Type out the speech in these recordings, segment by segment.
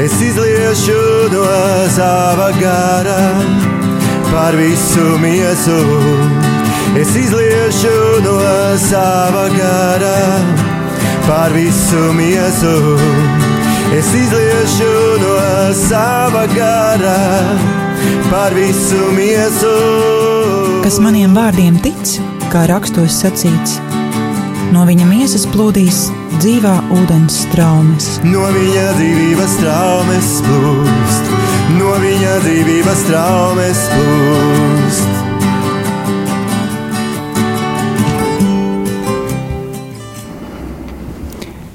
Es izliešu no sava gara par visu miesu. Es izliešu no sava gara par visu miesu. Es izliešu no sava gara par visu miesu. Kas maniem vārdiem tic, kā rakstos sacīts, no viņa miesas plūdīs dzīvā ūdens straumes. No viņa dzīvības straumes plūst, no viņa dzīvības straumes plūst.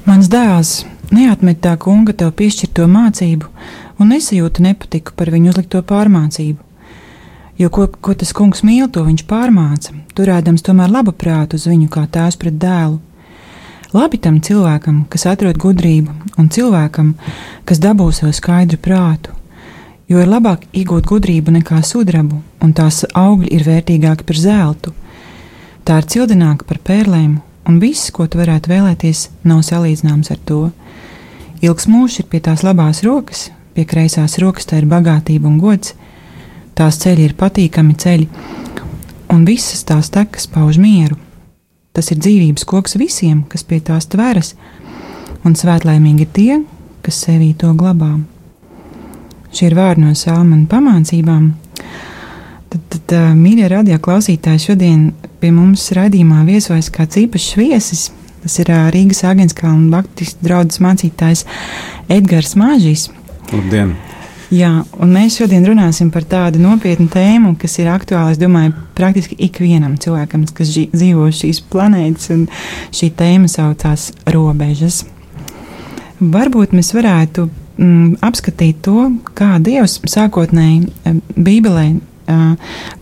Mans dēls neatmet tā kunga tev piešķirto mācību un nesajūta nepatiku par viņu uzlikto pārmācību. Jo ko tas kungs mīl, to viņš pārmāca, turēdams tomēr labu prātu uz viņu kā tēvs pret dēlu. Labi tam cilvēkam, kas atrod gudrību, un cilvēkam, kas dabū sev skaidru prātu, jo ir labāk iegūt gudrību nekā sudrabu, un tās augļi ir vērtīgāki par zeltu. Tā ir cildināka par pērlēm, un viss, ko tu varētu vēlēties, nav salīdzināms ar to. Ilgs mūžs ir pie tās labās rokas, pie kreisās rokas tā ir bagātība un gods. Tās ceļi ir patīkami ceļi, un visas tās tekas pauž mieru. Tas ir dzīvības koks visiem, kas pie tās tveras, un svētlaimīgi ir tie, kas sevī to glabā. Šie ir vārdi no salmu un pamācībām. Tad mīļie radio klausītāji, šodien pie mums raidījumā viesojas kāds īpašs viesis. Tas ir Rīgas Āgenskalna baptistu draudzes mācītājs Edgars Māžīs. Labdien! Jā, un mēs šodien runāsim par tādu nopietnu tēmu, kas ir aktuāla, es domāju, praktiski ikvienam cilvēkam, kas dzīvo šīs planētas, un šī tēma saucās robežas. Varbūt mēs varētu apskatīt to, kā Dievs sākotnēji Bībelē,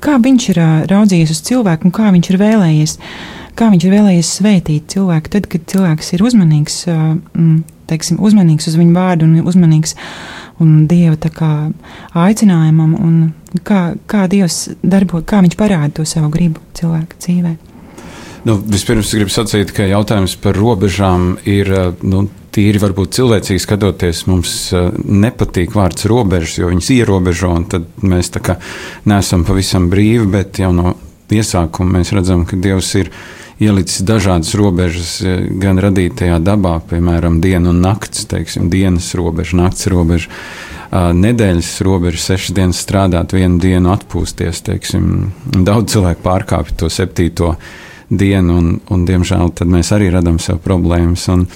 kā viņš ir raudzījies uz cilvēku un kā viņš ir vēlējies svētīt cilvēku, tad, kad cilvēks ir uzmanīgs, uzmanīgs uz viņu vārdu un uzmanīgs un Dieva tā kā aicinājumam, un kā Dievs darbo, kā viņš parāda to savu gribu cilvēka dzīvē. Vispirms gribu sacīt, ka jautājums par robežām ir, tīri varbūt cilvēcīgi skatoties, mums nepatīk vārds robežas, jo viņas ierobežo, un tad mēs tā kā neesam pavisam brīvi, bet jau no iesākuma mēs redzam, ka Dievs ir ielicis dažādas robežas gan radītajā dabā, piemēram, diena un nakts, teiksim, dienas robeža, nakts robeža, nedēļas robeža, 6 dienas strādāt, 1 dienu atpūsties, teiksim. Daudz cilvēku pārkāpj to 7. dienu, un diemžēl tad mēs arī radam sev problēmas, un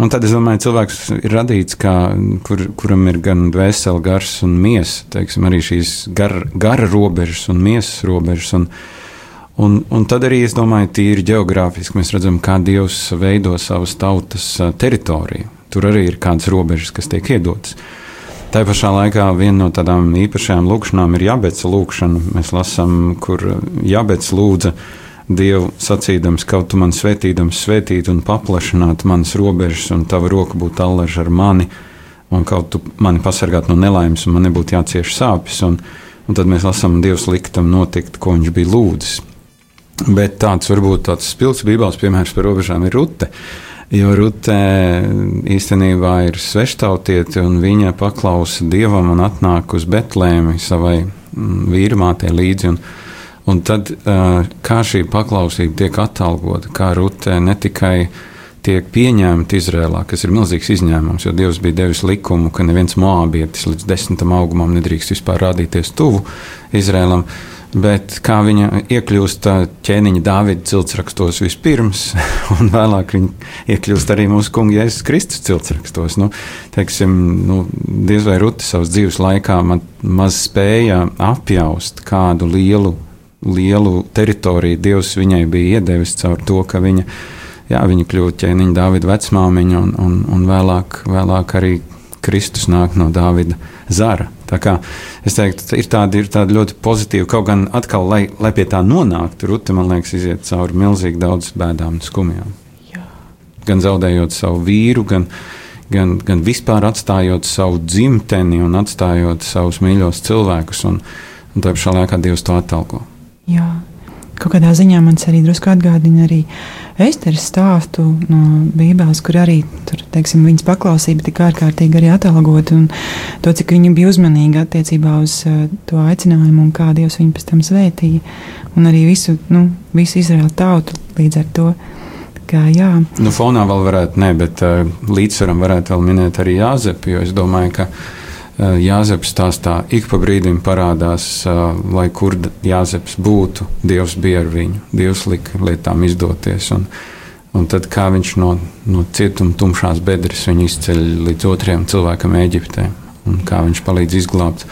tad es domāju, cilvēks ir radīts, kuram ir gan dvēsele, gars un miesa, teiksim, arī šīs gara robežas un miesas robežas, un tad arī, es domāju, tīri ģeogrāfiski mēs redzam, kā Dievs veido savas tautas teritoriju. Tur arī ir kādas robežas, kas tiek iedotas. Tā pašā laikā viena no tādām īpašajām lūkšanām ir Jabeca lūkšana. Mēs lasām, kur Jabets lūdza Dievu sacīdams, kaut tu man svētīdams svētīt un paplašināt manas robežas, un tava roka būtu allaž ar mani, un kaut tu mani pasargāt no nelaimes, un man nebūtu jācieš sāpes, un tad mēs lasām, Dievs liktam notikt, ko viņš bija lūdzis. Bet varbūt tāds spilgts bībeles piemērs par robežām ir Rute, jo Rute īstenībā ir sveštautiete, un viņa paklausa Dievam un atnāk uz Betlēmi savai vīrmātei līdzi, un tad kā šī paklausība tiek atalgota, kā Rute ne tikai tiek pieņemta Izrēlā, kas ir milzīgs izņēmums, jo Dievs bija devis likumu, ka neviens moābietis līdz 10. augumam nedrīkst vispār rādīties tuvu Izrēlam, bet kā viņa iekļūst ķēniņa Dāvida ciltsrakstos vispirms, un vēlāk viņa iekļūst arī mūsu kunga Jēzus Kristus ciltsrakstos. Diez vai Rute savas dzīves laikā maz spēja apjaust, kādu lielu teritoriju Dievs viņai bija iedevis caur to, ka viņa kļūst ķēniņa Dāvida vecmāmiņa, un vēlāk arī Kristus nāk no Dāvida zara. Tā kā es teiktu, ir tāda ļoti pozitīva, kaut gan atkal, lai pie tā nonāktu, Rute, man liekas, iziet cauri milzīgi daudz bēdām un skumjām. Jā. Gan zaudējot savu vīru, gan vispār atstājot savu dzimteni un atstājot savus mīļos cilvēkus, un tā pašā laikā Dievs to atalgo. Jā. Kaut kādā ziņā man arī drusku atgādina arī Esteres stāstu no Bībeles, kur arī tur, teiksim, viņas paklausība tik ārkārtīgi arī atalgota, un to, cik viņa bija uzmanīga attiecībā uz to aicinājumu un kā Dievs viņu pēc tam svētīja, un arī visu Izraēlu tautu līdz ar to. Kā, jā. Fonā vēl varētu, bet līdzsvaram varētu vēl minēt arī Jāzepu, jo es domāju, ka Jāzeps stāstā ik pa brīdim parādās, lai kur Jāzeps būtu, Dievs bija ar viņu, Dievs lika lietām izdoties, un tad kā viņš no cietuma tumšās bedres viņu izceļ līdz otrajam cilvēkam Ēģiptē, un kā viņš palīdz izglābt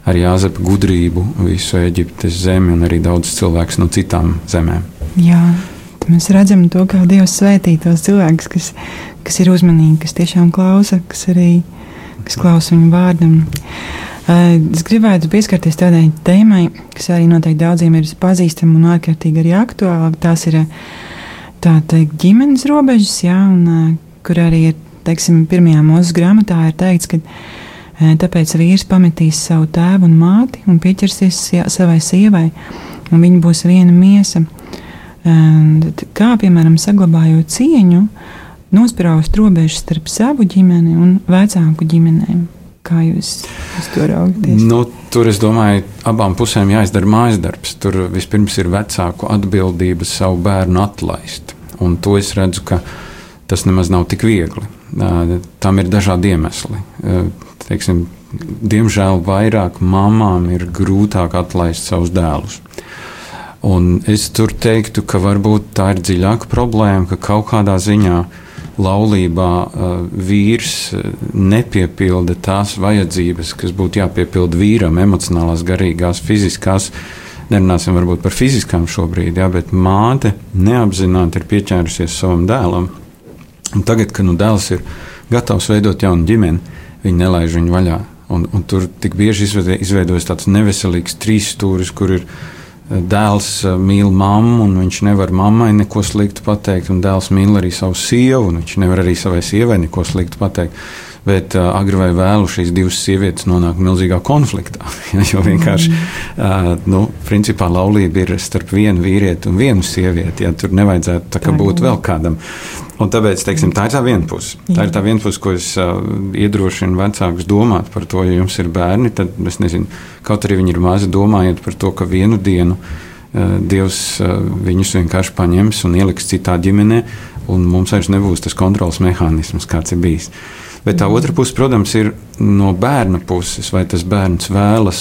ar Jāzepa gudrību visu Ēģiptes zemi un arī daudz cilvēkus no citām zemēm. Jā, mēs redzam to, kā Dievs svētī tos cilvēkus, kas ir uzmanīgi, kas tiešām klausa, kas klausa viņu vārdam. Es gribētu pieskarties tādai tēmai, kas arī noteikti daudziem ir pazīstama un ārkārtīgi arī aktuāla. Tās ir tā teikt ģimenes robežas, jā, un kur arī ir, teiksim, 1. Mūzes grāmatā ir teikts, ka tāpēc vīrs pametīs savu tēvu un māti un pieķersies savai sievai, un viņi būs viena miesa. Kā, piemēram, saglabājot cieņu, nospraust robežas starp savu ģimeni un vecāku ģimenēm. Kā jūs to raugties? Tur, es domāju, abām pusēm jāizdara mājas darbs. Tur vispirms ir vecāku atbildība savu bērnu atlaist. Un to es redzu, ka tas nemaz nav tik viegli. Tam ir dažādi iemesli. Teiksim, diemžēl vairāk mamām ir grūtāk atlaist savus dēlus. Un es tur teiktu, ka varbūt tā ir dziļāka problēma, ka kaut kādā ziņā laulībā vīrs nepiepilda tās vajadzības, kas būtu jāpiepilda vīram, emocionālās, garīgās, fiziskās. Nerunāsim varbūt par fiziskām šobrīd, jā, bet māte neapzināti ir pieķērusies savam dēlam. Un tagad, kad dēls ir gatavs veidot jaunu ģimeni, viņi nelaiž viņu vaļā. Un tur tik bieži izveidojas tāds neveselīgs trīsstūris, kur ir dēls mīl mammu, un viņš nevar mammai neko sliktu pateikt, un dēls mīl arī savu sievu, un viņš nevar arī savai sievai neko sliktu pateikt. Bet agri vai vēlu šīs divas sievietes nonāk milzīgā konfliktā. Jo vienkārši, principā laulība ir starp vienu vīrieti un vienu sievieti. Ja, tur nevajadzētu tā kā būt vēl kādam. Un tāpēc, teiksim, tā ir tā viena puse. Tā ir tā viena puse, ko es iedrošinu vecākus domāt par to, ja jums ir bērni, tad, es nezinu, kaut arī viņi ir mazi, domājiet par to, ka vienu dienu Dievs viņus vienkārši paņems un ieliks citā ģimenē, un mums vairs nebūs tas kontrols mehānisms, kāds ir bijis. Bet tā otra puse, protams, ir no bērna puses, vai tas bērns vēlas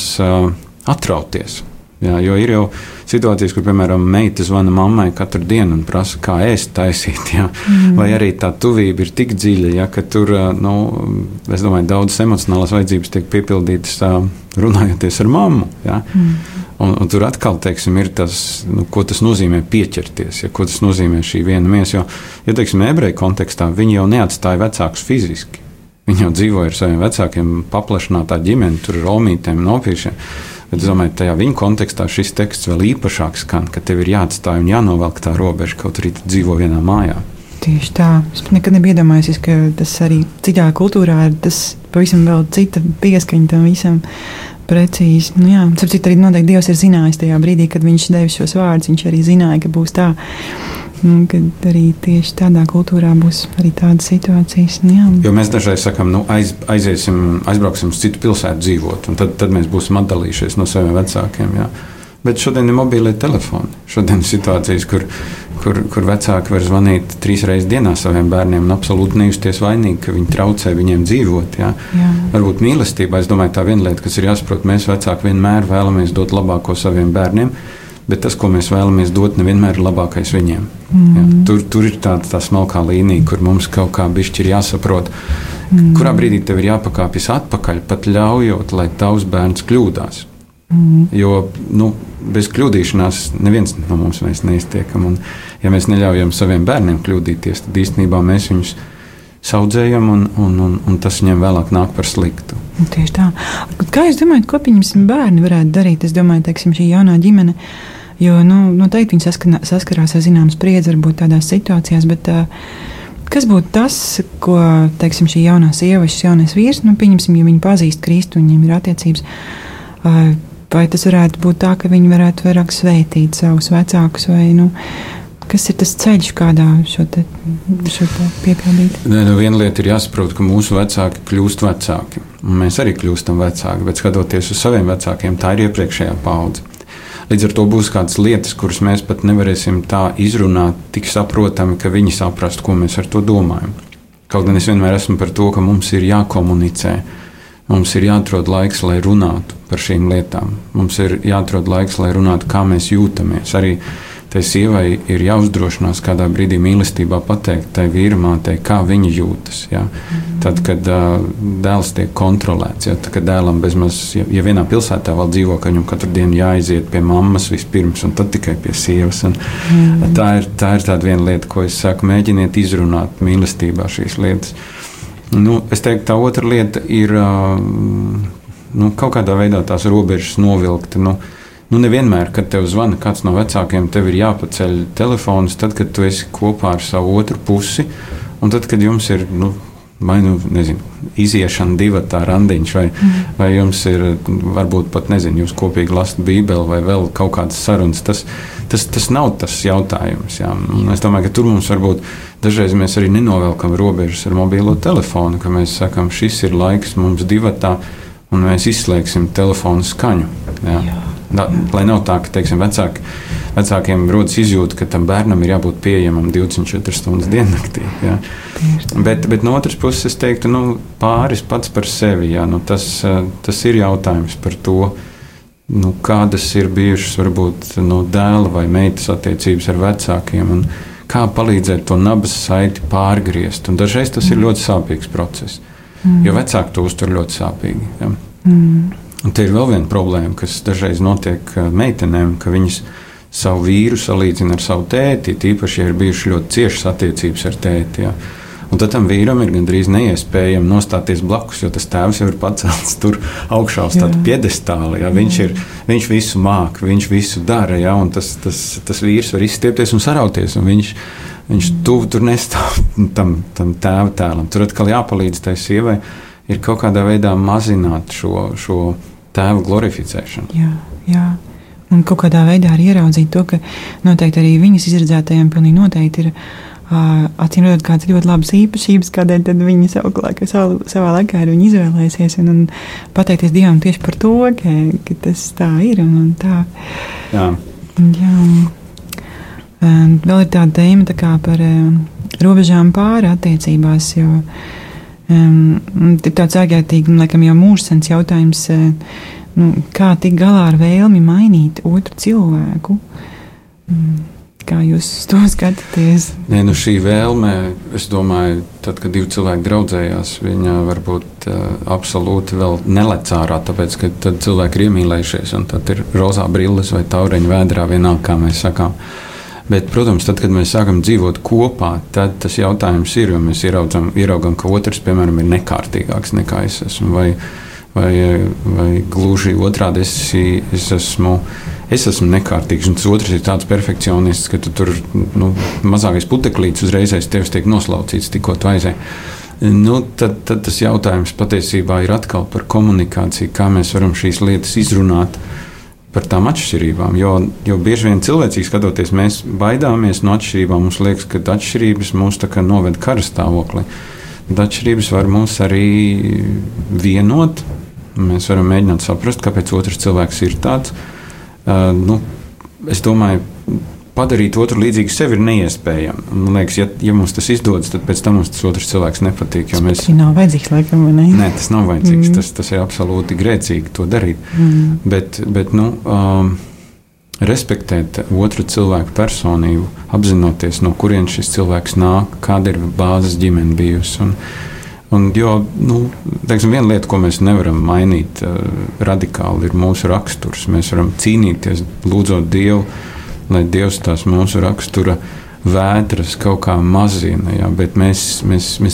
atrauties. Jā, jo ir jau situācijas, kur, piemēram, meita zvana mammai katru dienu un prasa, kā ēst taisīt. Jā. Vai arī tā tuvība ir tik dziļa, jā, ka tur, es domāju, daudzas emocionālās vajadzības tiek piepildītas runājoties ar mammu. Jā. Un tur atkal, teiksim, ir tas, ko tas nozīmē pieķerties, ja, ko tas nozīmē šī viena miesa. Jo, teiksim, ebreju kontekstā viņi jau neatstāja vecākus fiziski. Viņi jau dzīvoja ar saviem vecākiem paplašinātā ģimeni, tur ar omītēm un opīšiem. Bet es domāju, tajā viņa kontekstā šis teksts vēl īpašāk skan, ka tev ir jāatstāj un jānovelk tā robeža, kaut arī tu dzīvo vienā mājā. Tieši tā. Es nekad nebiju iedomājusies, ka tas arī citā kultūrā ir tas pavisam vēl cita pieskaņa tam visam precīzi. Jā, sapcīt, arī noteikti Dievs ir zinājis tajā brīdī, kad viņš devis šos vārdus, viņš arī zināja, ka būs tā. Kad arī tieši tādā kultūrā būs arī tādas situācijas. Jā. Jo mēs dažreiz sakām, aizbrauksim uz citu pilsētu dzīvot, un tad mēs būsim atdalījušies no saviem vecākiem. Jā. Bet šodien ir mobīlie telefoni. Šodien ir situācijas, kur vecāki var zvanīt 3 reizes dienā saviem bērniem un absolūti nejusties vainīgi, ka viņi traucē viņiem dzīvot. Jā. Varbūt mīlestībā, es domāju, tā viena lieta, kas ir jāsaprot, mēs vecāki vienmēr vēlamies dot labāko saviem bērniem, bet tas, ko mēs vēlamies dot, nevienmēr ir labākais viņiem. Jā, tur ir tā smalkā līnija, kur mums kaut kā bišķi ir jāsaprot, kurā brīdī tev ir jāpakāpjas atpakaļ, pat ļaujot, lai tavs bērns kļūdās. Jo bez kļūdīšanās neviens no mums neiztiekam. Un, ja mēs neļaujam saviem bērniem kļūdīties, tad īstenībā mēs viņus saudzējam, un tas viņiem vēlāk nāk par sliktu. Tieši tā. Kā jūs domājat, ko pieņemsim bērni varētu darīt? Es domāju, teiksim, šī jaunā ģimene, jo noteikti viņi saskarās ar zināmu spriedzi varbūt tādās situācijās, bet kas būtu tas, ko, teiksim, šī jaunā sieva, šis jaunais vīrs, pieņemsim, ja viņi pazīst Kristu un viņiem ir attiecības, vai tas varētu būt tā, ka viņi varētu vairāk svētīt savus vecākus, vai, Kas ir tas ceļš, kādā šo te piepildīt? Viena lieta ir jāsaprot, ka mūsu vecāki kļūst vecāki. Un mēs arī kļūstam vecāki, bet skatoties uz saviem vecākiem, tā ir iepriekšējā paudze. Līdz ar to būs kādas lietas, kuras mēs pat nevarēsim tā izrunāt tik saprotami, ka viņi saprastu, ko mēs ar to domājam. Kaut gan es vienmēr esmu par to, ka mums ir jākomunicē. Mums ir jāatrod laiks, lai runātu par šīm lietām. Mums ir jāatrod laiks, lai runātu, kā mēs jūtamies. Arī tai sievai ir jāuzdrošinās kādā brīdī mīlestībā pateikt tai vīramātei, kā viņa jūtas. Ja? Tad, kad dēls tiek kontrolēts, ja? Tad, kad dēlam bezmaz, ja vienā pilsētā vēl dzīvo, ka viņam katru dienu jāaiziet pie mammas vispirms un tad tikai pie sievas. Tā ir tāda viena lieta, ko es saku, mēģiniet izrunāt mīlestībā šīs lietas. Es teiktu, tā otra lieta ir kaut kādā veidā tās robežas novilkt. Nevienmēr, kad tev zvana kāds no vecākiem, tev ir jāpaceļ telefons, tad, kad tu esi kopā ar savu otru pusi, un tad, kad jums ir, iziešana divatā randiņš, vai jums ir, varbūt pat, jūs kopīgi lasat Bībeli, vai vēl kaut kādas sarunas, tas nav tas jautājums. Jā. Un es domāju, ka tur mums varbūt dažreiz mēs arī nenovelkam robežas ar mobilo telefonu, ka mēs sakam, šis ir laiks mums divatā, un mēs izslēgsim telefonu skaņu. Jā. Lai nav tā, ka teiksim, vecākiem rodas izjūta, ka tam bērnam ir jābūt pieejamam 24 stundas diennaktī. Ja? Bet no otras puses es teiktu, pāris pats par sevi. Ja? Tas ir jautājums par to, kādas ir bijušas varbūt dēla vai meitas attiecības ar vecākiem un kā palīdzēt to nabas saiti pārgriezt. Un dažreiz tas ir ļoti sāpīgs process, jo vecāki to uztver ļoti sāpīgi. Ja? Un te ir vēl viena problēma, kas dažreiz notiek meitenēm, ka viņas savu vīru salīdzina ar savu tēti, tīpaši, ja ir bijušas ļoti ciešas attiecības ar tēti. Ja. Un tad tam vīram ir gandrīz neiespējami nostāties blakus, jo tas tēvs jau ir pacelts tur augšā uz tādu piedestāli. Ja. Viņš visu māk, viņš visu dara, ja, un tas vīrs var izstiepties un sarauties, un viņš tuvu tur nestāv tam tēva tēlam. Tur atkal jāpalīdz tai sievai ir kaut kādā veidā mazināt šo tēva glorificēšanu. Jā. Un kaut kādā veidā arī ieraudzīt to, ka noteikti arī viņas izredzētajiem pilnīgi noteikti ir acīm redzot kādas ļoti labas īpašības, kādēļ tad viņi savā laikā ir viņi izvēlēsies un pateikties Dievam tieši par to, ka tas tā ir un tā. Jā. Vēl ir tāda tēma tā kā par robežām pāri attiecībās, jo ir tāds ārkārtīgi, laikam jau mūžsens jautājums, kā tikt galā ar vēlmi mainīt otru cilvēku. Kā jūs to skatāties? Šī vēlme, es domāju, tad, kad divi cilvēki draudzējās, viņa varbūt absolūti vēl nelec ārā, tāpēc, ka tad cilvēki ir iemīlējušies, un tad ir rozā brilles vai taureņa vēdrā, vienalga, kā mēs sakām. Bet, protams, tad, kad mēs sākam dzīvot kopā, tad tas jautājums ir, jo mēs ieraugam, ka otrs, piemēram, ir nekārtīgāks nekā es esmu, vai gluži otrādi es esmu nekārtīgs, un tas otrs ir tāds perfekcionists, ka tu tur mazākais puteklīts uzreizēs tevis tiek noslaucīts, tikko tu aizēji. Tad tas jautājums patiesībā ir atkal par komunikāciju, kā mēs varam šīs lietas izrunāt par tām atšķirībām, jo bieži vien cilvēcīgi skatoties, mēs baidāmies no atšķirībām, mums liekas, ka atšķirības mūs tā kā noved kara stāvoklī. Bet atšķirības var mūs arī vienot, mēs varam mēģināt saprast, kāpēc otrs cilvēks ir tāds. Es domāju, padarīt otru līdzīgu sevi ir neiespējami. Man liekas, ja mums tas izdodas, tad pēc tam mums tas otrs cilvēks nepatīk. Tas nav vajadzīgs, laikam, vai ne? Nē, tas nav vajadzīgs. Tas ir absolūti grēcīgi to darīt. Bet respektēt otru cilvēku personību, apzinoties, no kurienes šis cilvēks nāk, kāda ir bāzes ģimene bijusi. Viena lieta, ko mēs nevaram mainīt radikāli, ir mūsu raksturs. Mēs varam cīnīties, lūdzot Dievu, lai Dievs tās mūsu rakstura vētras kaut kā mazina, ja? Bet mēs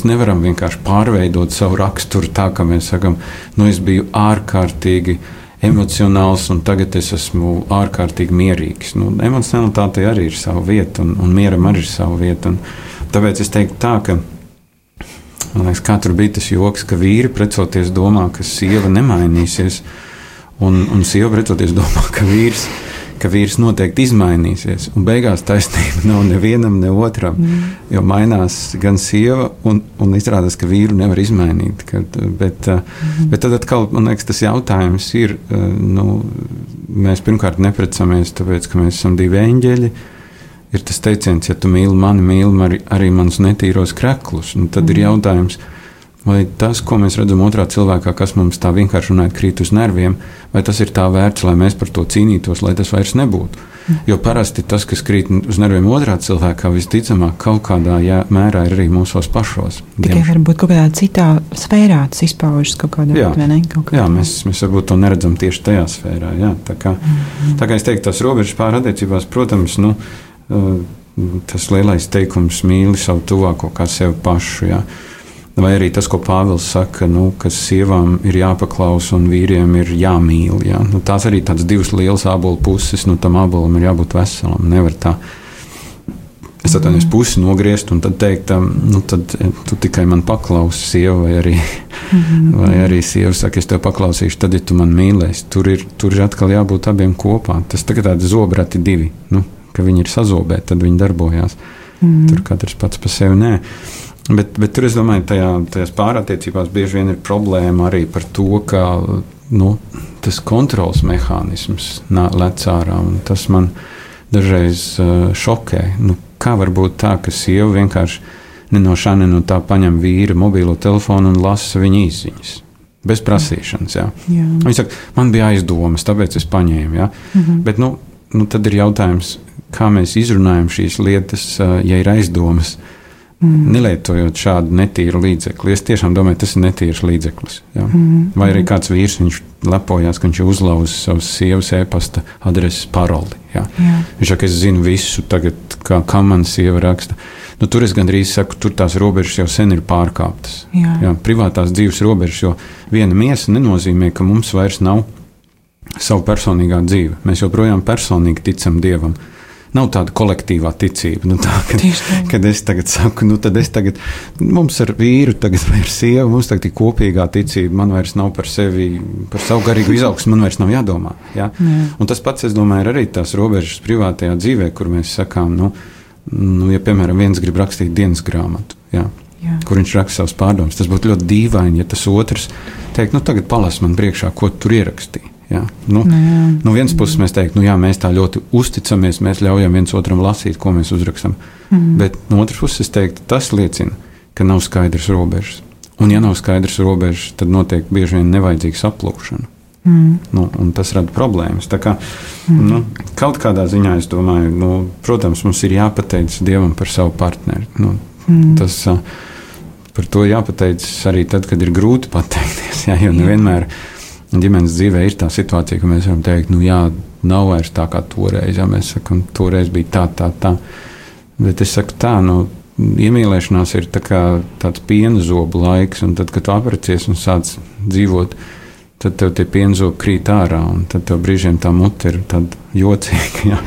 nevaram vienkārši pārveidot savu raksturu tā, ka mēs sakam, es biju ārkārtīgi emocionāls un tagad es esmu ārkārtīgi mierīgs. Emocionalitātei arī ir sava vieta un mieram arī ir sava vieta. Tāpēc es teiktu tā, ka man liekas, kā tur bija tas joks, ka vīri precoties domā, ka sieva nemainīsies un sieva precoties domā, ka vīrs ka vīrs noteikti izmainīsies, un beigās taisnība nav nevienam, ne otram, jo mainās gan sieva, un izrādās, ka vīru nevar izmainīt. Bet tad atkal, man liekas, tas jautājums ir, mēs pirmkārt neprecamies, tāpēc, ka mēs esam divi eņģeļi. Ir tas teiciens, ja tu mīli mani, mīli arī manus netīros kreklus, un tad ir jautājums, vai tas, ko mēs redzam otrā cilvēkā, kas mums tā vienkārši runājot krīt uz nerviem, vai tas ir tā vērts, lai mēs par to cīnītos, lai tas vairs nebūtu. Jo parasti tas, kas krīt uz nerviem otrā cilvēkā, visticamāk kaut kādā mērā ir arī mūsos pašos. Tikai varbūt kaut kādā citā sfērā tas izpaužas kaut kādā veidā, vai ne? Jā, mēs varbūt to neredzam tieši tajā sfērā. Jā. Tā kā es teiktu, tās robežas pār attiecībās, protams, tas lielais teikums mīli savu tuvāko kā sevi pašu, jā. Vai arī tas, ko Pāvils saka, ka sievām ir jāpaklausa un vīriem ir jāmīl. Jā. Tās arī tādas divas lielas ābolu puses, tam ābolam ir jābūt veselam. Nevar tā, es atvainojos, pusi nogriezt un tad teikt, tad tu tikai man paklausi, sieva, vai arī sieva saka, es tev paklausīšu, tad, ja tu man mīlēsi. Tur ir atkal jābūt abiem kopā. Tas tagad tādi zobrati divi, ka viņi ir sazobēti, tad viņi darbojās. Tur katrs pats pa sevi nē. Bet tur, es domāju, tajās pārattiecībās bieži vien ir problēma arī par to, ka tas kontrols mehānisms lec ārā, un tas man dažreiz šokē. Kā var būt tā, ka sieva vienkārši ne no šā, ne no tā paņem vīra mobilo telefonu un lasa viņa izziņas? Bez prasīšanas, jā. Viņa saka, man bija aizdomas, tāpēc es paņēmu, jā. Bet, tad ir jautājums, kā mēs izrunājam šīs lietas, ja ir aizdomas, nelietojot šādu netīru līdzekli. Es tiešām domāju, tas ir netīrs līdzeklis. Jā. Vai arī kāds vīrs, viņš lepojās, ka viņš uzlauza savas sievas e-pasta adreses paroli. Jā. Viņš saka, es zinu visu tagad, kā man sieva raksta. Tur es gandrīz saku, tur tās robežas jau sen ir pārkāptas. Jā, privātās dzīves robežas, jo viena miesa nenozīmē, ka mums vairs nav savu personīgā dzīve. Mēs joprojām personīgi ticam Dievam. Nav tāda kolektīvā ticība. Kad es tagad saku, mums ar vīru tagad vai ar sievu, mums tagad ir kopīgā ticība, man vairs nav par sevi, par savu garīgu izaugsmu, man vairs nav jādomā. Ja? Un tas pats, es domāju, ir arī tās robežas privātajā dzīvē, kur mēs sakām, ja, piemēram, viens grib rakstīt dienas grāmatu, kur viņš raksta savus pārdomas, tas būtu ļoti dīvaini, ja tas otrs teikt, tagad palas man priekšā, ko tur ierakstīja. Jā. No vienas puses mēs teiktu, mēs tā ļoti uzticamies, mēs ļaujam viens otram lasīt, ko mēs uzrakstam. Bet no otras puses es teiktu, tas liecina, ka nav skaidrs robežas. Un ja nav skaidrs robežas, tad notiek bieži vien nevajadzīga saplūšana. Un tas rada problēmas. Tā kā, kaut kādā ziņā es domāju, protams, mums ir jāpateic Dievam par savu partneri. Tas par to jāpateic arī tad, kad ir grūti pateikties, jo nevienmēr ģimenes dzīvē ir tā situācija, ka mēs varam teikt, nav vairs tā kā toreiz, mēs sakam, toreiz bija tā. Bet es saku tā, iemīlēšanās ir tāds piena zobu laiks, un tad, kad tu apprecējies un sāc dzīvot, tad tev tie piena zobi krīt ārā, un tad tev brīžiem tā mute ir tāda jocīga,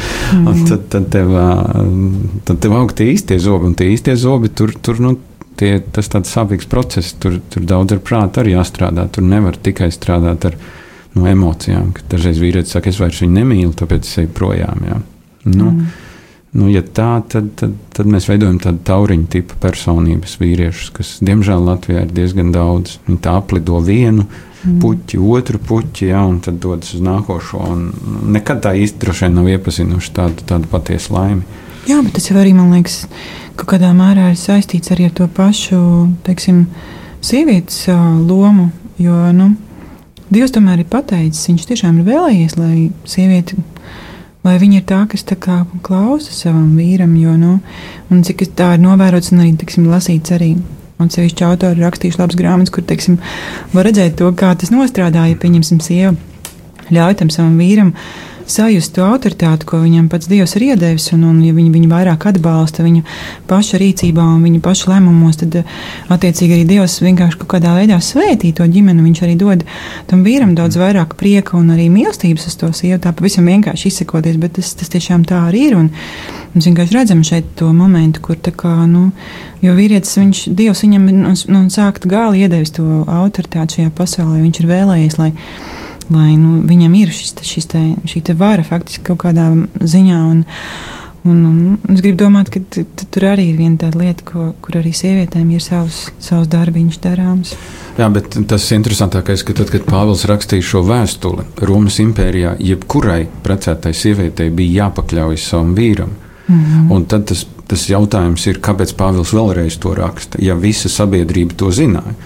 un tad tev aug tie īstie zobi, un tie īstie zobi tur tas tāds sāpīgs process, tur daudz ar prātu arī jāstrādā, tur nevar tikai strādāt ar emocijām, ka dažreiz vīrietis saka, es vairs viņu nemīlu, tāpēc es eju projām, jā. Ja tā, tad mēs veidojam tādu tauriņu tipu personības vīriešus, kas, diemžēl, Latvijā ir diezgan daudz. Viņi tā aplido vienu puķi, otru puķi, un tad dodas uz nākošo, un nekad tā īsti droši vien nav iepazinuši tādu patiesu laimi. Jā, bet tas jau arī, man liekas, kaut kādā mērā ir saistīts arī ar to pašu, teiksim, sievietes lomu, jo, Dievs tomēr ir pateicis, viņš tiešām ir vēlējies, lai sieviete, lai viņa ir tā, kas tā kā klausa savam vīram, jo, un cik tā ir novērots un arī, teiksim, lasīts arī, un sevišķi autori rakstījuši labas grāmatas, kur, teiksim, var redzēt to, kā tas nostrādāja, pieņemsim, sieva ļauj tam savam vīram sajust to autoritāti, ko viņam pats Dievs ir iedevis, un ja viņu vairāk atbalsta viņa paša rīcībā un viņa paša lēmumos, tad attiecīgi arī Dievs vienkārši kaut kādā veidā svētī to ģimeni, viņš arī dod tam vīram daudz vairāk prieka un arī mīlestības uz to sievu, tā pavisam vienkārši izsakoties, bet tas tiešām tā arī ir, un mēs vienkārši redzam šeit to momentu, kur tā kā, jo vīrietis, Dievs viņam no sākta gala iedevis to autoritāti šajā pasaulē, viņš ir vēlējies, lai viņam ir šī te vara faktiski kaut kādā ziņā. Un es gribu domāt, ka tur arī ir viena tāda lieta, kur arī sievietēm ir savs darbiņš darāms. Jā, bet tas interesantākais, ka tad, kad Pāvils rakstīja šo vēstuli Romas impērijā, jebkurai precētai sievietei bija jāpakļaujas savam vīram. Un tad tas jautājums ir, kāpēc Pāvils vēlreiz to raksta, ja visa sabiedrība to zināja.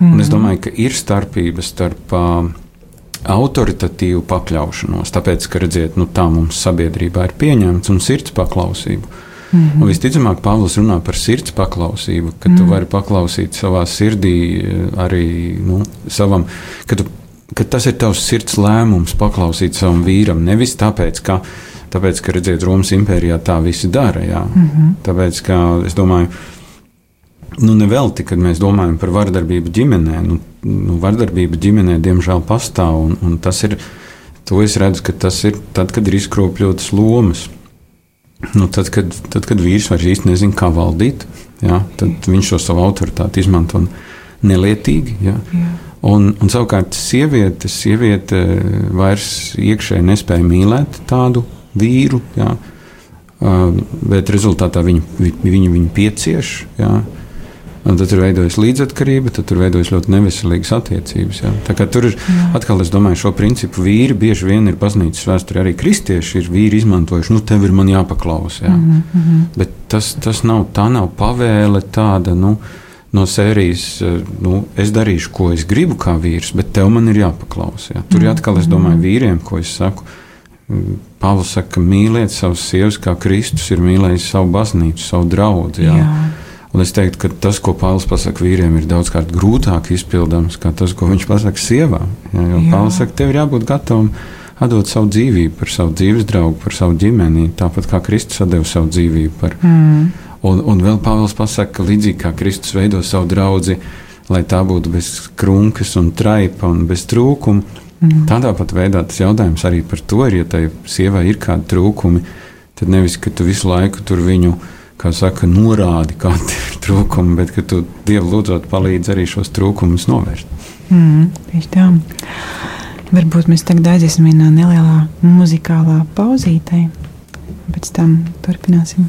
Un es domāju, ka ir starpības starp autoritatīvu pakļaušanos, tāpēc, ka, redziet, tā mums sabiedrībā ir pieņemts, un sirds paklausību. Un visticamāk, Pāvils runā par sirds paklausību, ka tu vari paklausīt savā sirdī arī savam, ka tas ir tavs sirds lēmums paklausīt savam vīram, nevis tāpēc, ka redziet, Romas impērijā tā visi dara, jā. Tāpēc, ka, es domāju, nevelti, kad mēs domājam par vardarbību ģimenē, vardarbība ģimenē diemžēl pastāv, un tas ir, to es redzu, ka tas ir tad, kad ir izkropļotas lomas. Tad, kad vīrs vairs īsti nezina, kā valdīt, jā, tad viņš šo savu autoritāti izmanto nelietīgi, jā. Un savukārt sieviete vairs iekšēji nespēja mīlēt tādu vīru, jā, bet rezultātā viņu piecieš, jā. Un tad tur veidojas līdzatkarība, tad tur veidojas ļoti neveselīgas attiecības. Jā. Tā kā tur ir, atkal es domāju, šo principu vīri bieži vien ir baznīcas vēsturē, arī kristieši ir vīri izmantojuši, tev ir man jāpaklaus. Jā. Bet tas nav pavēle tāda, no sērijas, es darīšu, ko es gribu kā vīrs, bet tev man ir jāpaklaus. Jā. Tur atkal es domāju vīriem, ko es saku. Pāvils saka, ka mīliet savas sievas, kā Kristus ir mīlējis savu baznīcu, savu draudzi. Jā. Un es teiktu, ka tas, ko Pāvils pasaka vīriem, ir daudzkārt grūtāk izpildāms, kā tas, ko viņš pasaka sievām. Jo Pāvils saka, tev ir jābūt gatavam atdot savu dzīvību par savu dzīves draugu, par savu ģimeni, tāpat kā Kristus atdeva savu dzīvību par. Un vēl Pāvils pasaka, ka līdzīgi kā Kristus veido savu draudzi, lai tā būtu bez krunkas un traipa un bez trūkumu, tādā pat veidā tas jautājums arī par to ir, ja tai sievai ir kādi trūkumi, tad nevis, ka tu visu laiku tur viņu, kā saka, norādi, kādi ir trūkumi, bet ka tu Dievu lūdzot palīdz arī šos trūkumus novērst. Tieši tā. Varbūt mēs tagad aiziesim vienā nelielā muzikālā pauzītē, pēc tam turpināsim.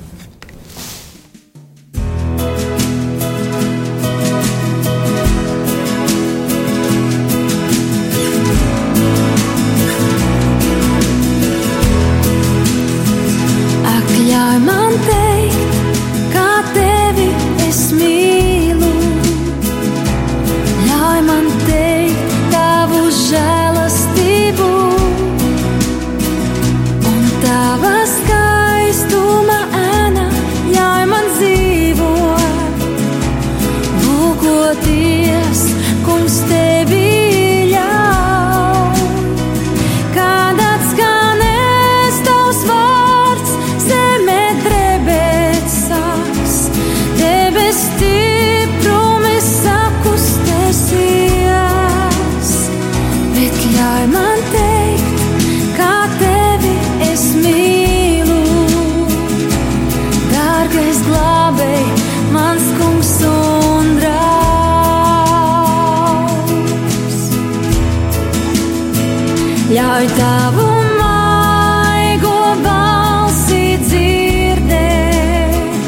Ļauj tavu maigo balsi dzirdēt,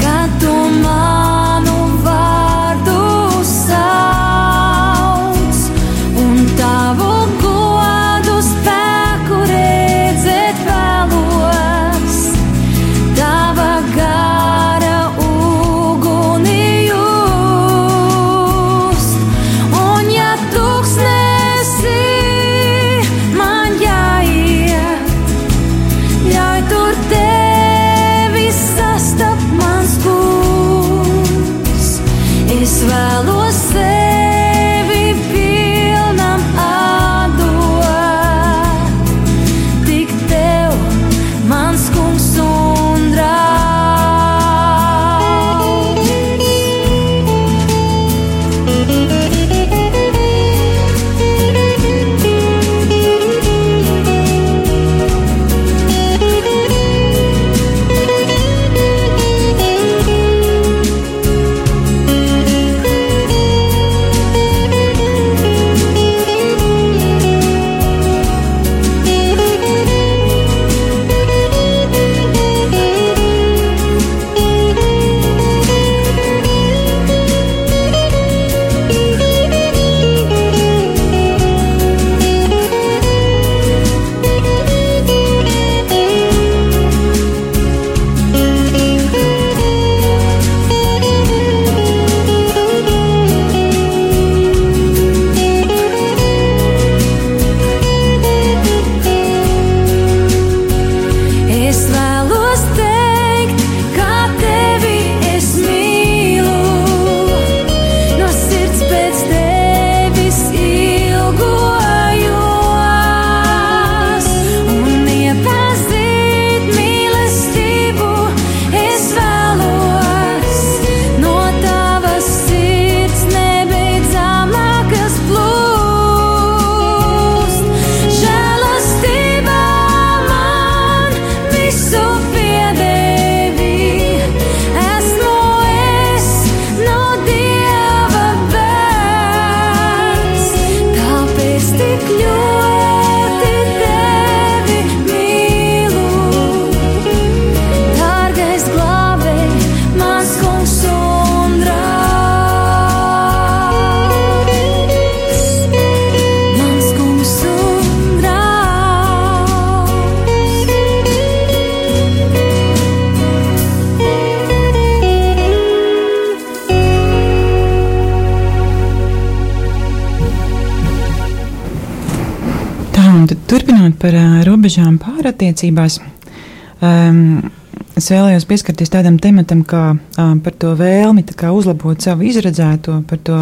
kad tu manu vārdu sauc, un tavu godu spēku redzēt vēlos, tava gara uguni just, un ja tūkstnesi man jā Turpinot par robežām pārattiecībās, es vēlējos pieskarties tādam tematam, kā par to vēlmi uzlabot savu izredzēto, par to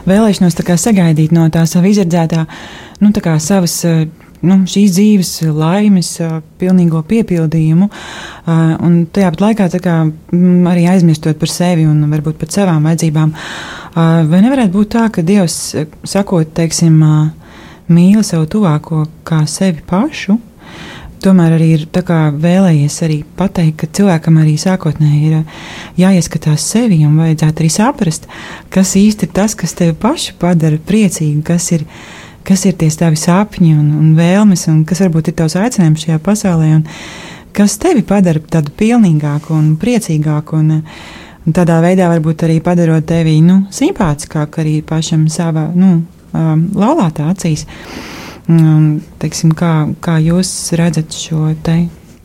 vēlēšanos sagaidīt no tā sava izredzētā, savas šīs dzīves laimes pilnīgo piepildījumu, un tajā pat laikā arī aizmirstot par sevi un varbūt pat savām vajadzībām. Vai nevarētu būt tā, ka Dievs, sakot, teiksim, mīli savu tuvāko kā sevi pašu, tomēr arī ir vēlējies arī pateikt, ka cilvēkam arī sākotnēji ir jāieskatās sevi un vajadzētu arī saprast, kas īsti ir tas, kas tevi pašu padara priecīgu, kas ir tie tavi sapņi un vēlmes, un kas varbūt ir tavs aicinājums šajā pasaulē, un kas tevi padara tādu pilnīgāku un priecīgāku, un tādā veidā varbūt arī padarot tevi simpātiskāku arī pašam savā laulātā acīs. Teiksim, kā jūs redzat šo te?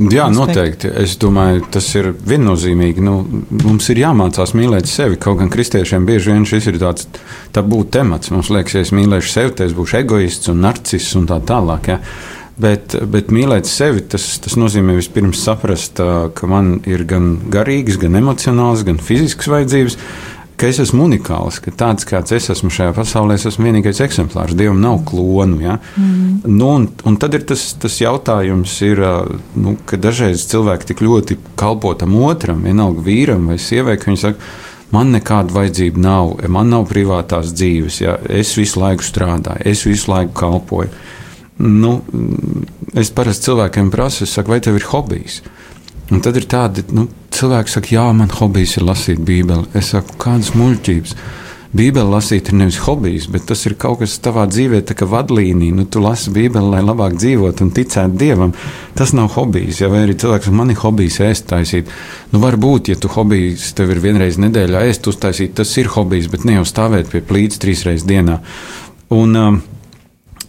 Jā, noteikti. Es domāju, tas ir viennozīmīgi. Mums ir jāmācās mīlēt sevi. Kaut gan kristiešiem bieži vien šis ir tāds tabū temats. Mums liekas, ja es mīlēšu sevi, tad es būšu egoists un narciss un tā tālāk. Ja? Bet mīlēt sevi, tas nozīmē vispirms saprast, ka man ir gan garīgas, gan emocionālas, gan fiziskas vajadzības, ka es esmu unikāls, ka tāds, kāds es esmu šajā pasaulē, es esmu vienīgais eksemplārs. Dievam nav klonu. Ja? Un tad ir tas jautājums, ka dažreiz cilvēki tik ļoti kalpo tam otram, vienalga vīram vai sievai, ka viņi saka, man nekāda vajadzība nav, man nav privātās dzīves, ja? Es visu laiku strādāju, es visu laiku kalpoju. Es parasti cilvēkiem prasu, es saku, vai tev ir hobijs? Un tad ir tādi, cilvēki saka, jā, man hobijs ir lasīt Bībeli. Es saku, kādas muļķības. Bībeli lasīt ir nevis hobijs, bet tas ir kaut kas tavā dzīvē, tā kā vadlīnija. Tu lasi Bībeli, lai labāk dzīvot un ticēt Dievam. Tas nav hobijs, ja vai arī cilvēks, man ir hobijs ēst taisīt. Varbūt, ja tu hobijs tev ir vienreiz nedēļā ēst uztaisīt, tas ir hobijs, bet ne jau stāvēt pie plīts 3 reizes dienā.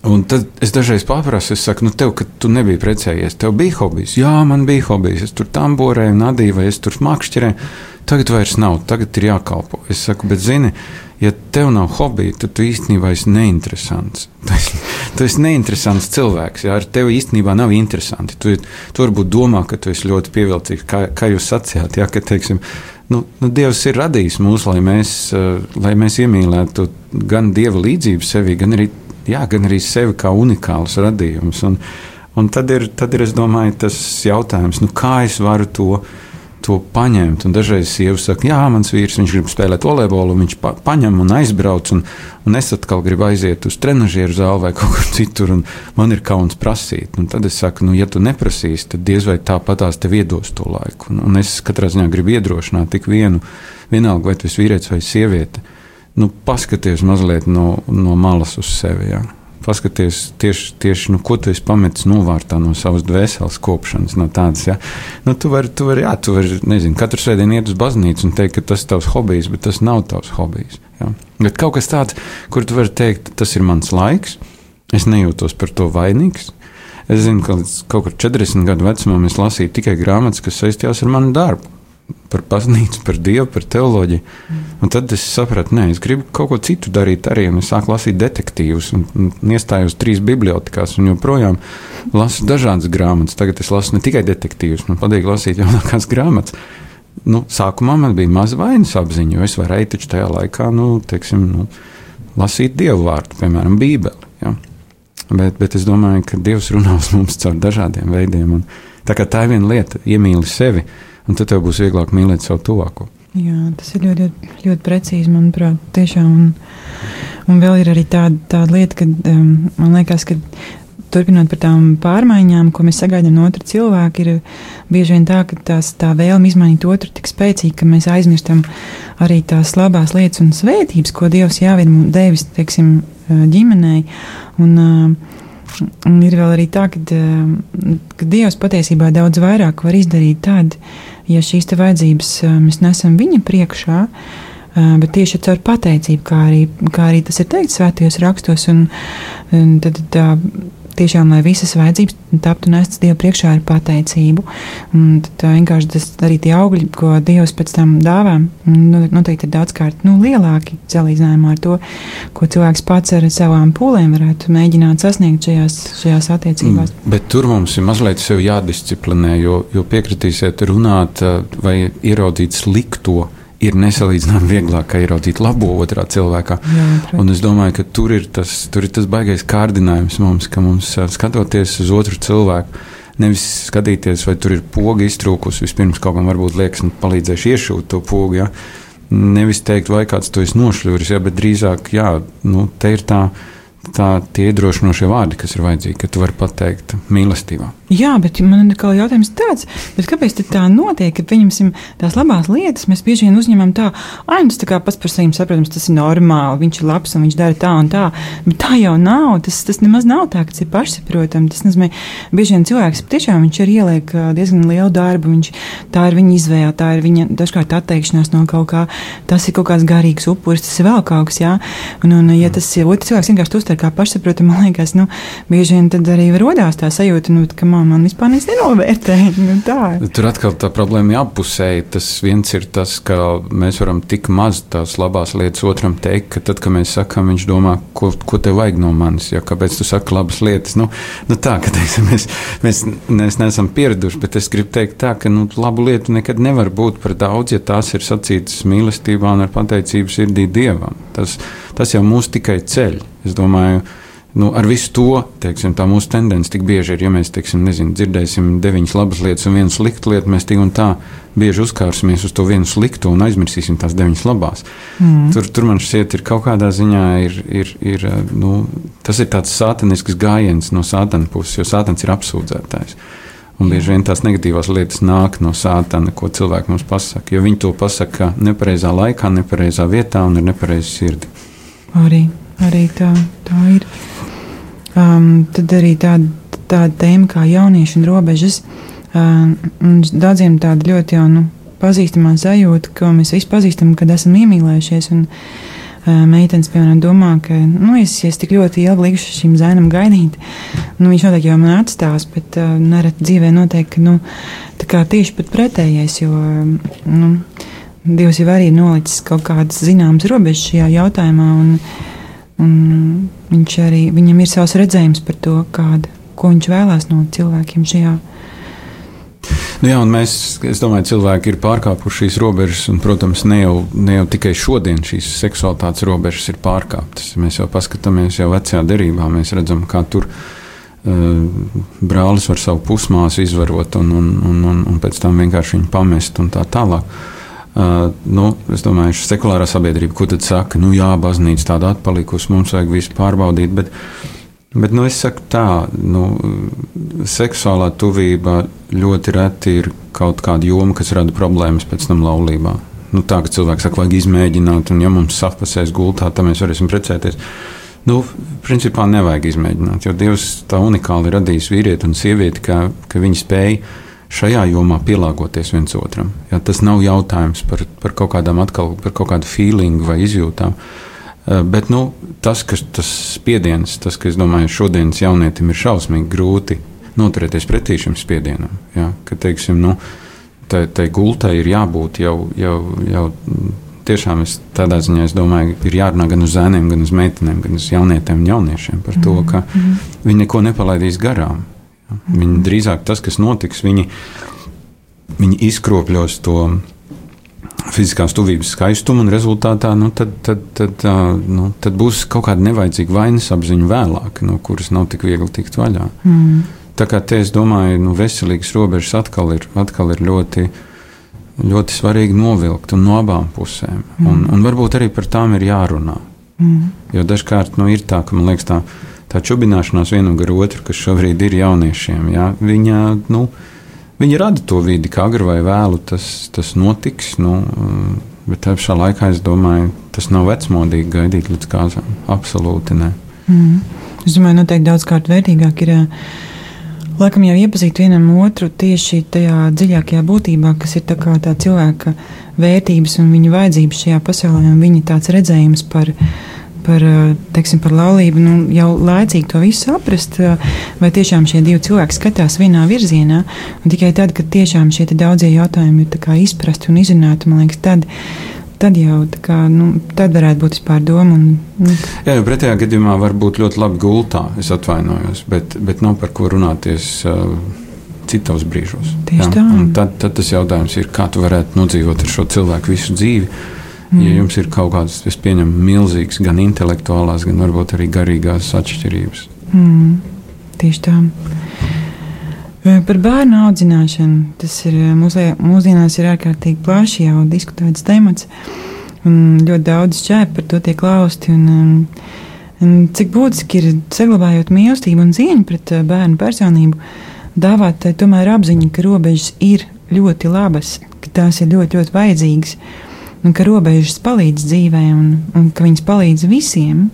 Un tad es dažreiz paprasu, es saku, tev, ka tu nebija precējies, tev bija hobijs? Jā, man bija hobijs, es tur tamborēju, nadīju, vai es tur makšķerēju. Tagad vairs nav, tagad ir jākalpo. Es saku, bet zini, ja tev nav hobija, tad tu īstenībā esi neinteresants. Tu esi neinteresants cilvēks, ja ar tevi īstenībā nav interesanti. Tu varbūt domā, ka tu esi ļoti pievilcīgs, kā jūs sacījāt, ja, ka, teiksim, Dievs ir radījis mūs, lai mēs iemīlētu gan Dieva līdzību sevī, gan arī sevi kā unikāls radījums. Un tad ir, es domāju, tas jautājums, kā es varu to paņemt. Un dažreiz sievas saka, jā, mans vīrs, viņš grib spēlēt volejbolu, viņš paņem un aizbrauc, un es atkal gribu aiziet uz trenažieru zāli vai kaut kur citur, un man ir kauns prasīt. Un tad es saku, ja tu neprasīsi, tad diez vai tāpatās tev iedos to laiku. Un es katrā ziņā gribu iedrošināt tik vienalga, vai tu esi vīrietis vai sieviete. Paskaties mazliet no malas uz sevi. Ja? Paskaties tieši ko tu esi pametis novārtā no savas dvēseles kopšanas. No tādas, ja? Tu vari, nezinu, katru svētdienu iet uz baznīcu un teikt, ka tas ir tavs hobijs, bet tas nav tavs hobijs. Ja? Bet kaut kas tāds, kur tu vari teikt, tas ir mans laiks, es nejūtos par to vainīgs. Es zinu, ka kaut kur 40 gadu vecumā es lasīju tikai grāmatas, kas saistījās ar manu darbu. Par baznīcu, par Dievu, par teoloģiju. Un tad es sapratu, es gribu kaut ko citu darīt arī, un es sāku lasīt detektīvus, un iestājos 3 bibliotekās, un joprojām lasu dažādas grāmatas. Tagad es lasu ne tikai detektīvus, man patīk lasīt jaunākās grāmatas. Sākumā man bija maza vainas apziņa, jo es varēju taču tajā laikā, lasīt Dievu vārdu, piemēram, Bībeli. Ja? Bet es domāju, ka Dievs runā uz mums caur dažādiem veidiem, un tā ir viena lieta, iemīli sevi, un tad tev būs vieglāk mīlēt savu tuvāko. Jā, tas ir ļoti, ļoti precīzi, manuprāt, tiešām. Un vēl ir arī tāda lieta, ka man liekas, ka turpinot par tām pārmaiņām, ko mēs sagaidām no otra cilvēka, ir bieži vien tā, ka tā vēlme izmainīt otru tik spēcīga, ka mēs aizmirstam arī tās labās lietas un svētības, ko Dievs jau ir devis, teiksim, ģimenei. Un ir vēl arī tā, ka Dievs patiesībā daudz vairāk var izdarīt tad, ja šīs te vajadzības mēs nesam viņa priekšā, bet tieši caur pateicību, kā arī tas ir teikts svētajos rakstos, un tad tiešām, lai visas vajadzības taptu nestas Dievu priekšā ar pateicību. Un tad vienkārši tas arī tie augļi, ko Dievs pēc tam dāvā, noteikti ir daudzkārt lielāki salīdzinājumā ar to, ko cilvēks pats ar savām pūlēm varētu mēģināt sasniegt šajās attiecībās. Bet tur mums ir mazliet sev jādisciplinē, jo piekritīsiet runāt vai ieraudzīt slikto, ir nesalīdzinām vieglāk, kā ieraudzīt labo otrā cilvēkā. Jā, un es domāju, ka tur ir tas baigais kārdinājums mums, ka mums skatoties uz otru cilvēku, nevis skatīties, vai tur ir poga iztrūkus, vispirms kaut kam varbūt liekas, palīdzēšu iešūt to pogu, ja? Nevis teikt, vai kāds to es nošļuris, ja? Bet drīzāk, jā, te ir tie iedrošinošie vārdi, kas ir vajadzīgi, ka tu vari pateikt mīlestībā. Jā, bet man ir kā jautājums tāds, bet kāpēc tā notiek, ka pieņemsim tās labās lietas, mēs bieži vien uzņemam tā, tas tā kā pats par saviem saprotams, tas ir normāli, viņš ir labs un viņš dara tā un tā, bet tā jau nav, tas nemaz nav tā, ka tas ir pašsaprotami, tas nozīmē, bieži vien cilvēks tiešām viņš ir ieliek diezgan lielu darbu, tā ir viņa izvēle, tā ir viņa dažkārt atteikšanās no kaut kā, tas ir kaut kāds garīgs upuris, tas ir vēl kaut kas, jā, un ja tas ir otrs cilvēks vienkārši uztver kā pašsaprotami, man liekas, bieži vien tad arī rodās tā sajūta, ka man vispār nenovērtē. Tur atkal tā problēma ir appusēji. Tas viens ir tas, ka mēs varam tik maz tās labās lietas otram teikt, ka tad, kad mēs sakām, viņš domā, ko tev vajag no manis, ja kāpēc tu saki labas lietas. Tā, ka teiksim, mēs neesam pieraduši, bet es gribu teikt tā, ka labu lietu nekad nevar būt par daudz, ja tās ir sacītas mīlestībā un ar pateicību sirdī Dievam. Tas jau mūs tikai ceļ. Es domāju, ar visu to, teiksim, tā mūsu tendence tik bieži ir, ja mēs, teiksim, dzirdēsim 9 labas lietas un 1 sliktu lietu, mēs tik un tā bieži uzkārsimies uz to vienu sliktu un aizmirsīsim tās 9 labās. Tur man šķiet ir kaut kādā ziņā tas ir tāds sātanisks gājiens no sātana puses, jo sātans ir apsūdzētājs. Un bieži vien tās negatīvās lietas nāk no sātana, ko cilvēki mums pasaka, jo viņi to pasaka nepareizā laikā, nepareizā vietā un ar nepareizu sirdi. Arī tā ir. Tad arī tāda tēma kā jaunieši un robežas. Daudziem tāda ļoti jau pazīstamā sajūta, ko mēs visi pazīstam, kad esam iemīlējušies. Un meitenes, piemēram, domā, ka es tik ļoti ilgi likšu šim zēnam gaidīt. Viņš noteikti jau man atstās, bet nereti dzīvē notiek, ka tā kā tieši pat pretējais, jo Dievs jau arī nolicis kaut kādas zināmas robežas šajā jautājumā, un viņam ir savs redzējums par to, ko viņš vēlās no cilvēkiem šajā. Un es domāju, cilvēki ir pārkāpuši šīs robežas, un, protams, ne jau tikai šodien šīs seksualitātes robežas ir pārkāptas. Mēs jau paskatāmies jau vecajā derībā, mēs redzam, kā tur brālis var savu pusmāsu izvarot un pēc tam vienkārši viņu pamest un tā tālāk. Es domāju, sekulārā sabiedrība, ko tad saka, jā, baznīca tāda atpalikusi, mums vajag visu pārbaudīt, bet es saku tā, seksuālā tuvība ļoti reti ir kaut kāda joma, kas rada problēmas pēc tam laulībā. Tā, ka cilvēks saka, vajag izmēģināt, un ja mums sapasēs gultā, tad mēs varēsim precēties. Principā nevajag izmēģināt, jo Dievs tā unikāli radījis vīrieti un sievieti, ka viņi spēj šajā jomā pielāgoties viens otram. Ja, tas nav jautājums par kaut kādām atkal, par kaut kādu feelingu vai izjūtām. Bet tas spiediens, ka es domāju, šodienas jaunietim ir šausmīgi grūti noturēties pretī šim spiedienam. Ja, ka, teiksim, tai gultai ir jābūt jau tiešām tādā ziņā, es domāju, ir jārunā gan uz zēniem, gan uz meitenēm, gan uz jaunietiem un jauniešiem par to, ka viņi neko nepalaidīs garām. Viņi drīzāk tas, kas notiks, viņi izkropļos to fiziskās tuvības skaistumu, un rezultātā tad būs kaut kāda nevajadzīga vainas apziņa vēlāk, no kuras nav tik viegli tikt vaļā. Tā kā te es domāju, veselīgas robežas atkal ir ļoti, ļoti svarīgi novilkt un no abām pusēm. Un varbūt arī par tām ir jārunā. Jo dažkārt ir tā, ka man liekas tā čubināšanās vienam gar otru, kas šobrīd ir jauniešiem, ja, viņi rada to vidi, ka agri vai vēlu tas notiks, bet tā pašā laikā, es domāju, tas nav vecmodīgi gaidīt līdz kāzām. Absolūti ne. Es domāju, noteikti daudzkārt vērtīgāk ir laikam jau iepazīt vienam otru tieši tajā dziļākajā būtībā, kas ir tā cilvēka vērtības un viņa vajadzības šajā pasaulē, un viņa tāds redzējums par teiksim, par laulību, jau laicīgi to visu saprast, vai tiešām šie divi cilvēki skatās vienā virzienā, un tikai tad, kad tiešām šie daudzie jautājumi ir tā kā izprasti un izrunāti, man liekas, tad jau kā, tad varētu būt vispār doma. Jā, jo pretējā gadījumā var būt ļoti labi gultā, es atvainojos, bet nav par ko runāties citos brīžos. Tieši tā. Un tad tas jautājums ir, kā tu varētu nodzīvot ar šo cilvēku visu dzīvi, ja jums ir kaut kādas, es pieņemu, milzīgas gan intelektuālās, gan varbūt arī garīgās atšķirības. Tieši tā. Par bērnu audzināšanu. Tas ir mūsdienās ir ārkārtīgi plaši jau diskutēts temats, un ļoti daudz šķēp par to tiek lausti. Un cik būtiski ir, saglabājot mīlestību un cieņu pret bērnu personību, dāvāt tomēr apziņu, ka robežas ir ļoti labas, ka tās ir ļoti, ļoti vajadzīgas, un ka robežas palīdz dzīvē, un ka viņas palīdz visiem,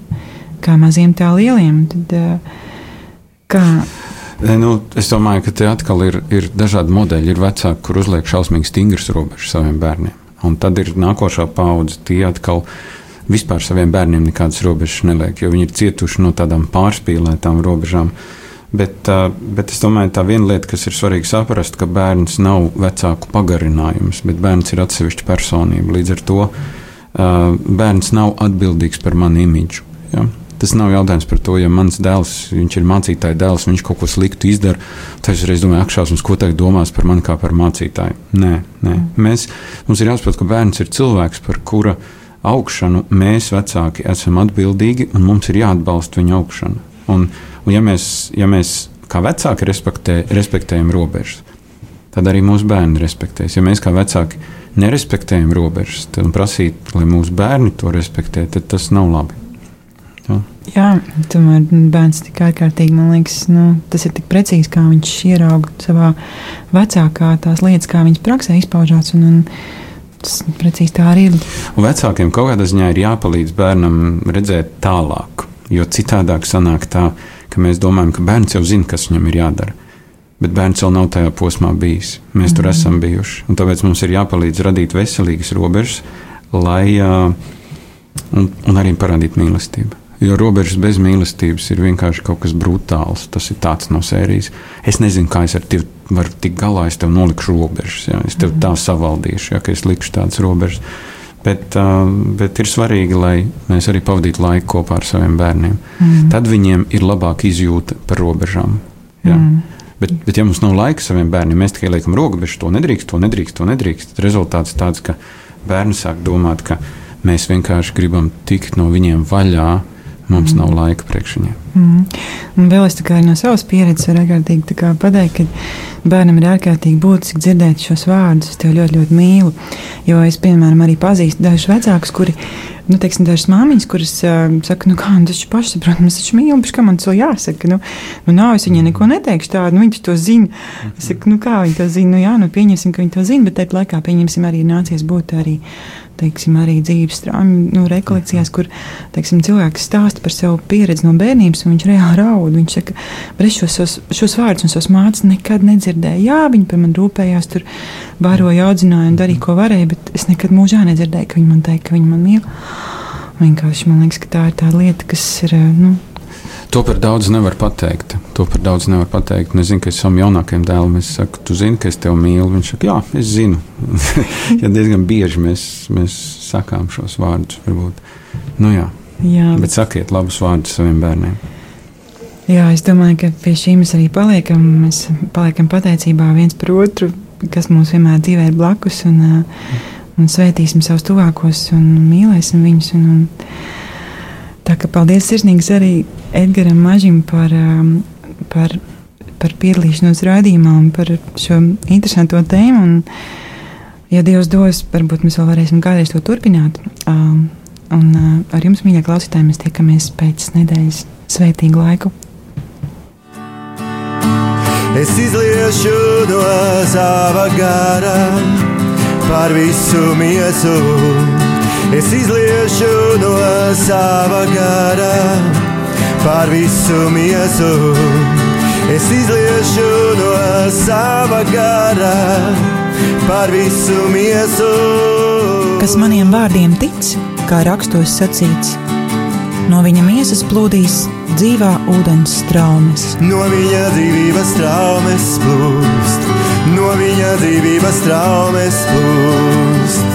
kā maziem tā lieliem. Tad, es domāju, ka te atkal ir dažādi modeļi. Ir vecāki, kur uzliek šausmīgi stingras robežas saviem bērniem. Un tad ir nākošā paudze, tie atkal vispār saviem bērniem nekādas robežas neliek, jo viņi ir cietuši no tādām pārspīlētām robežām. Bet es domāju, tā viena lieta, kas ir svarīgi saprast, ka bērns nav vecāku pagarinājums, bet bērns ir atsevišķa personība. Līdz ar to bērns nav atbildīgs par manu imidžu. Ja? Tas nav jautājums par to, ja mans dēls, viņš ir mācītāja dēls, viņš kaut ko sliktu izdara, tad es reiz domāju, akšausmas, ko tagad domās par mani kā par mācītāju. Nē. Mums ir jāsaprot, ka bērns ir cilvēks, par kura augšanu mēs vecāki esam atbildīgi, un mums ir jāatbalsta viņa augšana. Un ja mēs kā vecāki respektējam robežas, tad arī mūsu bērni respektēs. Ja mēs kā vecāki nerespektējam robežas, tad prasīt, lai mūsu bērni to respektē, tad tas nav labi. Jā, tomēr bērns tik ārkārtīgi, man liekas, tas ir tik precīzi, kā viņš ierauga savā vecākā tās lietas, kā viņas praksē izpaužās, un tas precīzi tā arī ir. Un vecākiem kaut kādā ziņā ir jāpalīdz bērnam redzēt tālāk, jo citādāk sanāk tā, ka mēs domājam, ka bērns jau zina, kas viņam ir jādara, bet bērns vēl nav tajā posmā bijis. Mēs tur esam bijuši, un tāpēc mums ir jāpalīdz radīt veselīgas robežas, lai un arī parādīt mīlestību. Jo robežas bez mīlestības ir vienkārši kaut kas brutāls. Tas ir tāds no sērijas. Es nezinu, kā es ar tevi varu tikt galā, es tev nolikšu robežas. Ja? Es tev tā savaldīšu, ja, ka es likšu tādas robežas. Bet ir svarīgi, lai mēs arī pavadītu laiku kopā ar saviem bērniem. Tad viņiem ir labāka izjūta par robežām. Ja? Bet ja mums nav laika saviem bērniem, mēs tikai liekam robežas, to nedrīkst. Rezultāts tāds, ka bērni sāk domāt, ka mēs vienkārši gribam tikt no viņiem vaļā. Mums nav laika priekš viņiem. Un vēl es no savas pieredzes varu ārkārtīgi pateikt, ka bērnam ir ārkārtīgi būtiski dzirdēt šos vārdus. Es tevi ļoti, ļoti mīlu. Jo es, piemēram, arī pazīstu dažus vecākus, kuri, dažas māmiņas, kuras saka, tas taču pašsaprotams, es taču mīlu, kā man tas jāsaka. Nav, es viņai neko neteikšu tādu, viņi to zina. Es saku, kā viņi to zina? Pieņemsim, ka viņi to zina, bet tajā laikā pieņemsim arī nācies būt arī dzīves strāmu rekolekcijās, kur cilvēks stāsta par savu pieredzi no bērnības, un viņš reāli raud. Viņš saka, bet es šos vārdus un savas mācas nekad nedzirdēju. Jā, viņi par mani rūpējās, tur bāroja, audzināja un darīja, ko varēja, bet es nekad mūžā nedzirdēju, ka viņi man teica, ka viņi man mīl. Vienkārši man liekas, ka tā ir tā lieta, kas ir. To par daudz nevar pateikt. Es zinu, ka es savam jaunākajam dēlam saku, tu zini, ka es tevi mīlu. Viņš saka, jā, es zinu. Ja diezgan bieži mēs sakām šos vārdus, varbūt. Jā. Bet sakiet labus vārdus saviem bērniem. Jā, es domāju, ka pie šī mēs arī paliekam. Mēs paliekam pateicībā viens par otru, kas mums vienmēr dzīvē ir blakus, un svētīsim savus tuvākos un mīlēsim viņus. Tā kā paldies sirsnīgs arī Edgaram Mažim par piedalīšanos raidījumā un par šo interesanto tēmu. Un, ja Dievs dos, varbūt mēs vēl varēsim kādreiz to turpināt. Un ar jums, mīļie klausītāji, mēs tiekamies pēc nedēļas. Svētīgu laiku! Es izliešu no sava gara par visu miesu. Es izliešu no sava gara par visu miesu. Es izliešu no sava gara par visu miesu. Kas maniem vārdiem tic, kā rakstos sacīts, No viņa miesas plūdīs dzīvā ūdens straumes. No viņa dzīvības traumes plūst, no viņa dzīvības traumes plūst.